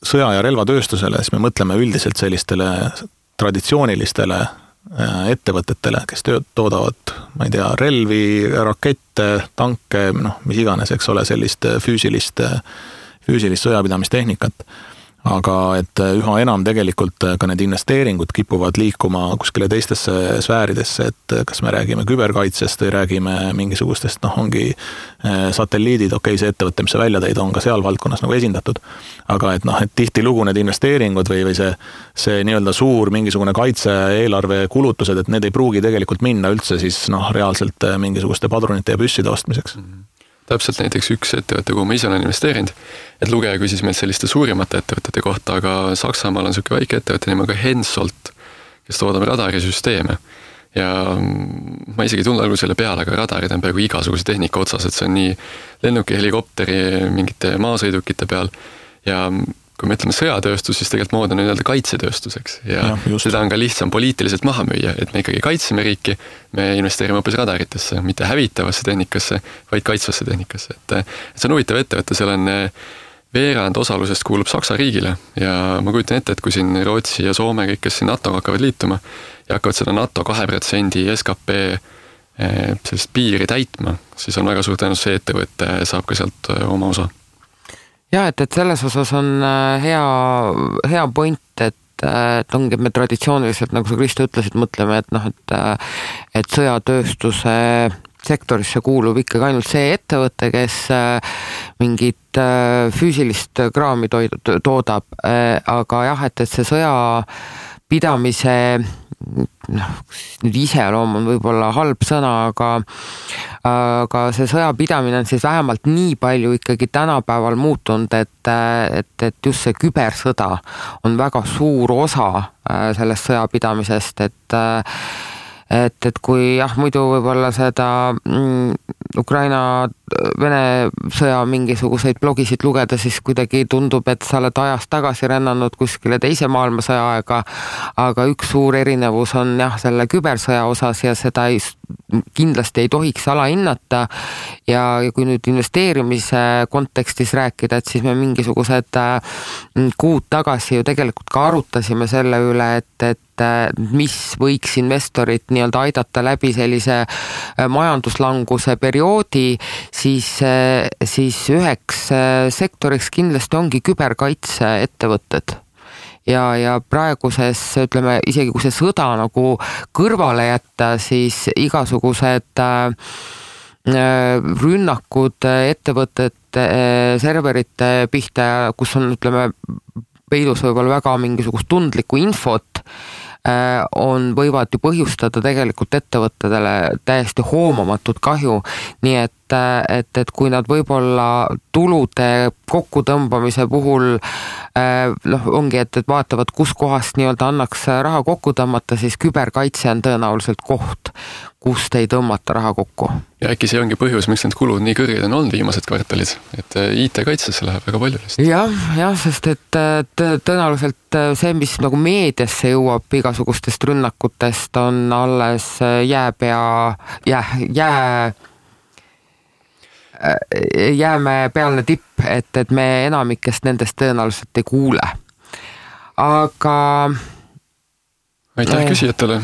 sõja- ja relvatööstusele, siis me mõtleme üldiselt sellistele traditsioonilistele ettevõtetele, kes toodavad, ma ei tea, relvi, rakette, tanke, mis iganes, eks ole, sellist füüsilist sõjapidamistehnikat. Aga et üha enam tegelikult ka need investeeringud kipuvad liikuma kuskile teistesse sfääridesse, et kas me räägime küberkaitsest või räägime mingisugustest, ongi satelliidid, see ettevõte, mis sa välja tõid, on ka seal valdkonnas nagu esindatud. Aga et tihti lugu need investeeringud või see nii-öelda suur mingisugune kaitse-eelarve kulutused, et need ei pruugi tegelikult minna üldse siis reaalselt mingisuguste padrunite ja püsside ostmiseks. Täpselt näiteks üks ettevõte, kuhu ma ise olen investeerinud, et lugeja küsis meil selliste suurimate ettevõtete kohta, aga Saksamaal on selline väike ettevõte nimega Hensoldt, kes toodab radarisüsteeme. Ja ma isegi tulnud algul selle peale, aga radarid on peaaegu igasuguse tehnika otsas, et see on nii lennuki, helikopteri, mingite maasõidukite peal ja kui me ütleme sõjatööstus, siis tegelikult mood on nii-öelda kaitsetööstuseks ja seda on ka lihtsam poliitiliselt maha müüa, et me ikkagi kaitseme riiki, me investeerime hoopis radaritesse, mitte hävitavasse tehnikasse, vaid kaitsvasse tehnikasse. Et see on huvitav ettevõte, seal on veerand osalusest kuulub Saksa riigile ja ma kujutan ette, et kui siin Rootsi ja Soome kõik, kes siin NATO hakkavad liituma ja hakkavad seda NATO 2% SKP sellist piiri täitma, siis on väga suur tõenäosus see ettevõte saab ka sealt oma osa. Ja, et selles osas on hea point, et ongi me traditsiooniliselt, nagu sa Kristo ütlesid, mõtleme, et sõjatööstuse sektorisse kuulub ikkagi ainult see ettevõte, kes mingit füüsilist kraami toodab, aga jah, et see sõjapidamise nüüd iseloom on võib-olla halb sõna, aga see sõjapidamine on siis vähemalt nii palju ikkagi tänapäeval muutunud, et just see kübersõda on väga suur osa sellest sõjapidamisest, et kui muidu võib-olla seda Ukraina-Vene sõja mingisuguseid blogisid lugeda, siis kuidagi tundub, et sa oled ajast tagasi rännanud kuskile teise maailmasõja aega, aga üks suur erinevus on selle kübersõja osas ja seda kindlasti ei tohiks alahinnata ja kui nüüd investeerimise kontekstis rääkida, et siis me mingisugused kuud tagasi ju tegelikult ka arutasime selle üle, et mis võiks investorit nii-öelda aidata läbi sellise majanduslanguse perioodi, siis üheks sektoriks kindlasti ongi küberkaitse ettevõtted. Ja praeguses, ütleme, isegi kui see sõda nagu kõrvale jätta, siis igasugused rünnakud ettevõtete serverite pihta, kus on, ütleme, peidus võib-olla väga mingisugust tundlikku infot, võivad ju põhjustada tegelikult ettevõttedele täiesti hoomamatut kahju, nii et kui nad võib-olla tulude kokkutõmbamise puhul ongi, et vaatavad, kus kohast nii-öelda annaks raha kokku tõmmata, siis küberkaitse on tõenäoliselt koht, kust ei tõmmata raha kokku. Ja äkki see ongi põhjus, miks need kulud nii kõrged on olnud viimased kvartalid, et IT-kaitsesse läheb väga palju lihtsalt. Jah, sest et tõenäoliselt see, mis nagu meediasse jõuab igasugustest rünnakutest, on alles jäämäe pealne tipp, et me enamikest nendest tõenäoliselt ei kuule. Aga aitäh küsijatele.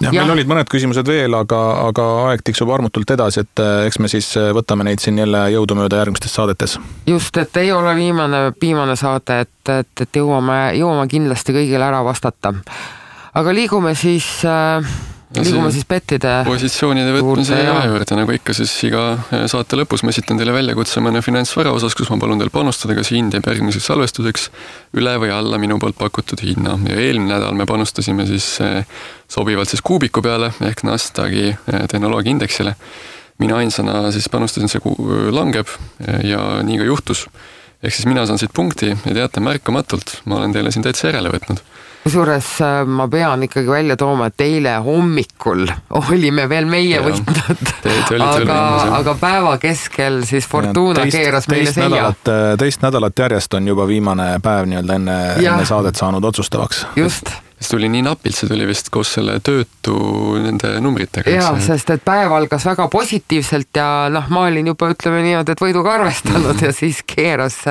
Ja, meil olid mõned küsimused veel, aga aeg tiksub armutult edasi, et eks me siis võtame neid siin jälle jõudumööda järgmistes saadetes. Just, et ei ole viimane saade, et jõuame kindlasti kõigile ära vastata. Aga liigume siis bettide positsioonide võtmise juurde, nagu ikka siis iga saate lõpus ma esitan teile väljakutse mõne finantsvara osas, kus ma palun teil panustada, kas hind jääb järgmiseks salvestuseks üle või alla minu poolt pakutud hinna. Ja eelmine nädal me panustasime siis sobivalt siis kuubiku peale ehk Nasdaqi tehnoloogiaindeksile. Mina ainsana siis panustasin, see langeb ja nii ka juhtus. Ehk siis mina saan siit punkti ja teate märkamatult, ma olen teile siin täitsa järele võtnud. Kusjuures ma pean ikkagi välja tooma, et eile hommikul olime veel meie võitnud, aga päeva keskel siis Fortuna keeras meile selja. Teist nädalat järjest on juba viimane päev nii-öelda enne saadet saanud otsustavaks. Just. See tuli nii napilt, see tuli vist koos selle töötu nende numbritega. Jaa, sest et päev algas väga positiivselt ja ma olin juba, ütleme niimoodi, et võiduga arvestanud ja siis keeras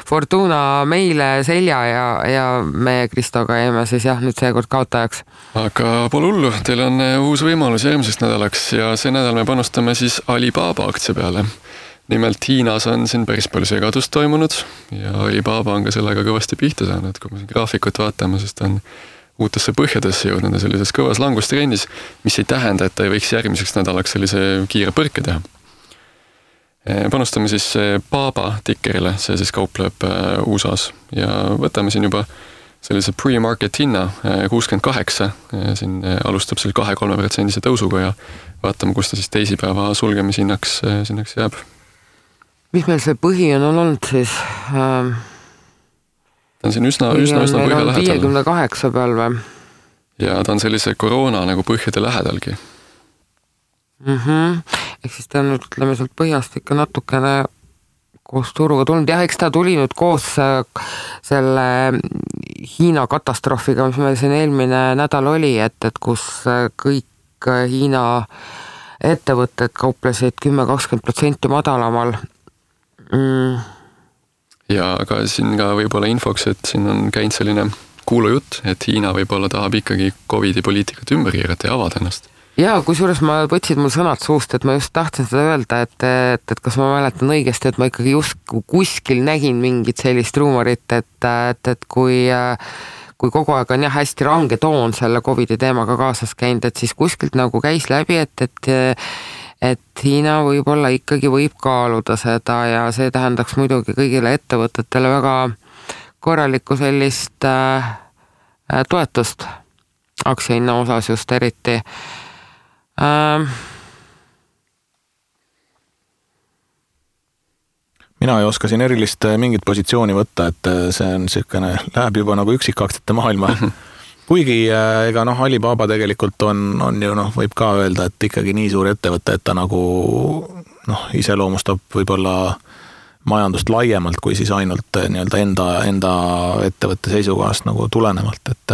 Fortuna meile selja ja me Kristoga jäime siis nüüd seekord kaotajaks. Aga pole hullu, teil on uus võimalus järgmiseks nädalaks ja see nädal me panustame siis Alibaba aktsia peale. Nimelt Hiinas on siin päris palju segadust toimunud ja Alibaba on ka sellega kõvasti pihta saanud, kui me siin graafikut vaatame, sest on uutesse põhjadesse jõudnud ja sellises kõvas langustrendis, mis ei tähenda, et ta ei võiks järgmiseks nädalaks sellise kiire põrke teha. Panustame siis Baba tikkerile, see siis kaupleb USAs ja võtame siin juba sellise pre-market hinna 68, siin alustab seal 2-3% tõusuga ja vaatame, kus ta siis teisipäeva sulgemisinnaks jääb. Mis meil see põhi on olnud siis? Ta on siin üsna põhja lähedal. 58 peal või? Ja ta on sellise koroona nagu põhjade lähedalgi. Ehk siis ta on nüüd, ütleme, sealt põhjast ikka natukene koos turuga tulnud. Jah, eks ta tuli nüüd koos selle Hiina katastroofiga, mis meil siin eelmine nädal oli, et kus kõik Hiina ettevõtted kauplesid 10-20% madalamal. Ja aga siin ka võib-olla infoks, et siin on käinud selline kuulujutt, et Hiina võib-olla tahab ikkagi COVID-i poliitikat ümber keerata ja avada ennast. Jaa, kusjuures ma võtsid mul sõnad suust, et ma just tahtsin seda öelda, et kas ma mäletan õigesti, et ma ikkagi just kuskil nägin mingit sellist ruumorit, et kui kogu aeg on hästi range toon selle COVID-i teemaga kaasas käinud, et siis kuskilt nagu käis läbi, et Hiina võib-olla ikkagi võib kaaluda seda ja see tähendaks muidugi kõigile ettevõtetele väga korralikku sellist toetust aktsiahinna osas just eriti. Mina ei oska siin erilist mingit positsiooni võtta, et see on siukene, läheb juba nagu üksikaktsete maailma. Kuigi ega Alibaba tegelikult on ju võib ka öelda, et ikkagi nii suur ettevõte, et ta nagu iseloomustab võib-olla majandust laiemalt kui siis ainult enda ettevõtte seisukohast nagu tulenevalt, et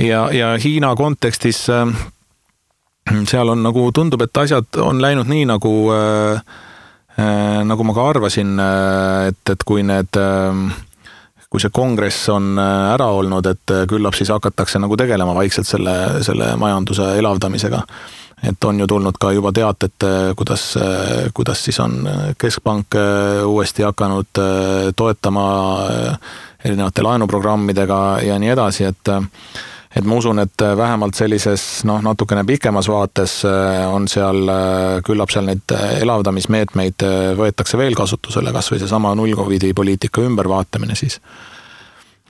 ja Hiina kontekstis seal on nagu tundub, et asjad on läinud nii nagu ma ka arvasin, et kui see kongress on ära olnud, et küllap siis hakatakse nagu tegelema vaikselt selle majanduse elavdamisega. Et on ju tulnud ka juba teated, kuidas siis on keskpank uuesti hakanud toetama erinevate laenuprogrammidega ja nii edasi, et ma usun, et vähemalt sellises natukene pikemas vaates on seal, küllap seal neid elavdamismeetmeid võetakse veel kasutusele, kas või see sama null-COVID poliitika ümbervaatamine siis.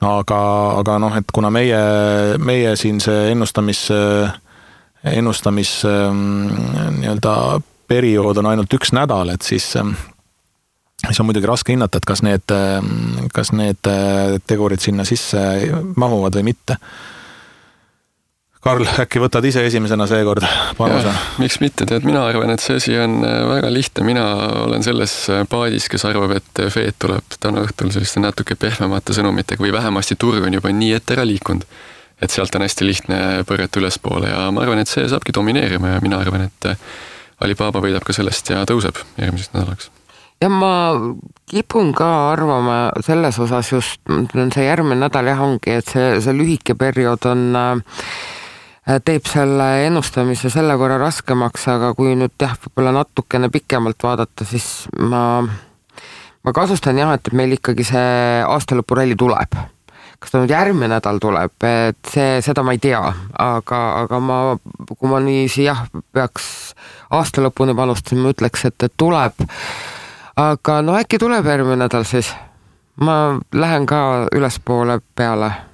Aga et kuna meie siin see ennustamis nii-öelda periood on ainult 1 nädal, et siis on muidugi raske hinnata, et kas need tegurid sinna sisse mahuvad või mitte. Karl, äkki võtad ise esimesena seekord panuse? Miks mitte? Mina arvan, et see asi on väga lihtne. Mina olen selles paadis, kes arvab, et Fed tuleb täna õhtul selliste natuke pehmemate sõnumitega või vähemasti turg on juba nii ette ära liikunud, et sealt on hästi lihtne põrjata ülespoole ja ma arvan, et see saabki domineerima ja mina arvan, et Alibaba võidab ka sellest ja tõuseb järgmisest nädalaks. Ja ma kipun ka arvama selles osas just, see järgmine nädal jah ongi, et see lühike periood teeb selle ennustamise selle võrra raskemaks, aga kui nüüd võib-olla natukene pikemalt vaadata, siis ma kasustan jah, et meil ikkagi see aastalõpuralli tuleb. Kas ta nüüd järgmine nädal tuleb, et seda ma ei tea, aga kui ma niiviisi peaks aastalõpuni panustada, ma ütleks, et tuleb. Aga äkki tuleb järgmine nädal siis. Ma lähen ka ülespoole peale.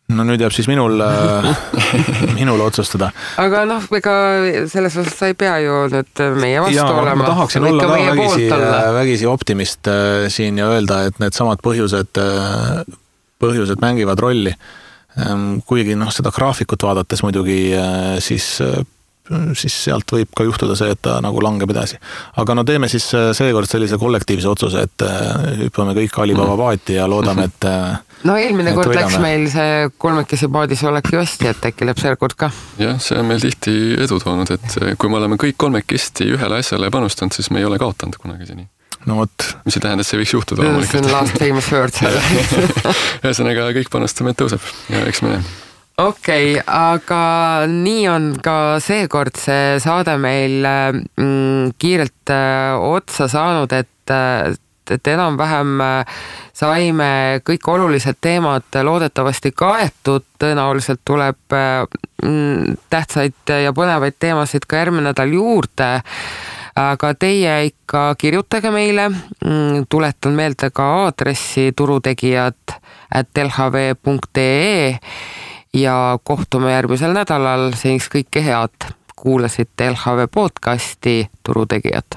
No nüüd jääb siis minul otsustada. Aga ega selles osas sa ei pea ju nüüd meie vastu olema. Ma tahaksin olla ka vägisi optimist siin ja öelda, et need samad põhjused mängivad rolli. Kuigi seda graafikut vaadates muidugi siis sealt võib ka juhtuda see, et ta nagu langeb edasi. Aga teeme siis seekord sellise kollektiivse otsuse, et hüppame kõik Alibaba paati ja loodame, et eelmine kord läks meil see kolmekesi paadis oleki hästi, et äkki läheb see kord ka. Jah, see on meil tihti edu toonud, et kui me oleme kõik kolmekesti ühele asjale panustanud, siis me ei ole kaotanud kunagi seni. No võt. Mis ei tähenda, et see võiks juhtuda. See on last famous word selle. Ühesõnaga kõik panustame, et tõuseb ja eks me Okei, aga nii on ka seekord see saade meil kiirelt otsa saanud, et enam-vähem saime kõik olulised teemad loodetavasti kaetud, tõenäoliselt tuleb tähtsaid ja põnevaid teemasid ka järgmine nädal juurde, aga teie ikka kirjutage meile, tuletan meelde ka aadressi turutegijad@lhv.ee ja kohtume järgmisel nädalal, seniks kõike head. Kuulasite LHV podcasti Turutegijad.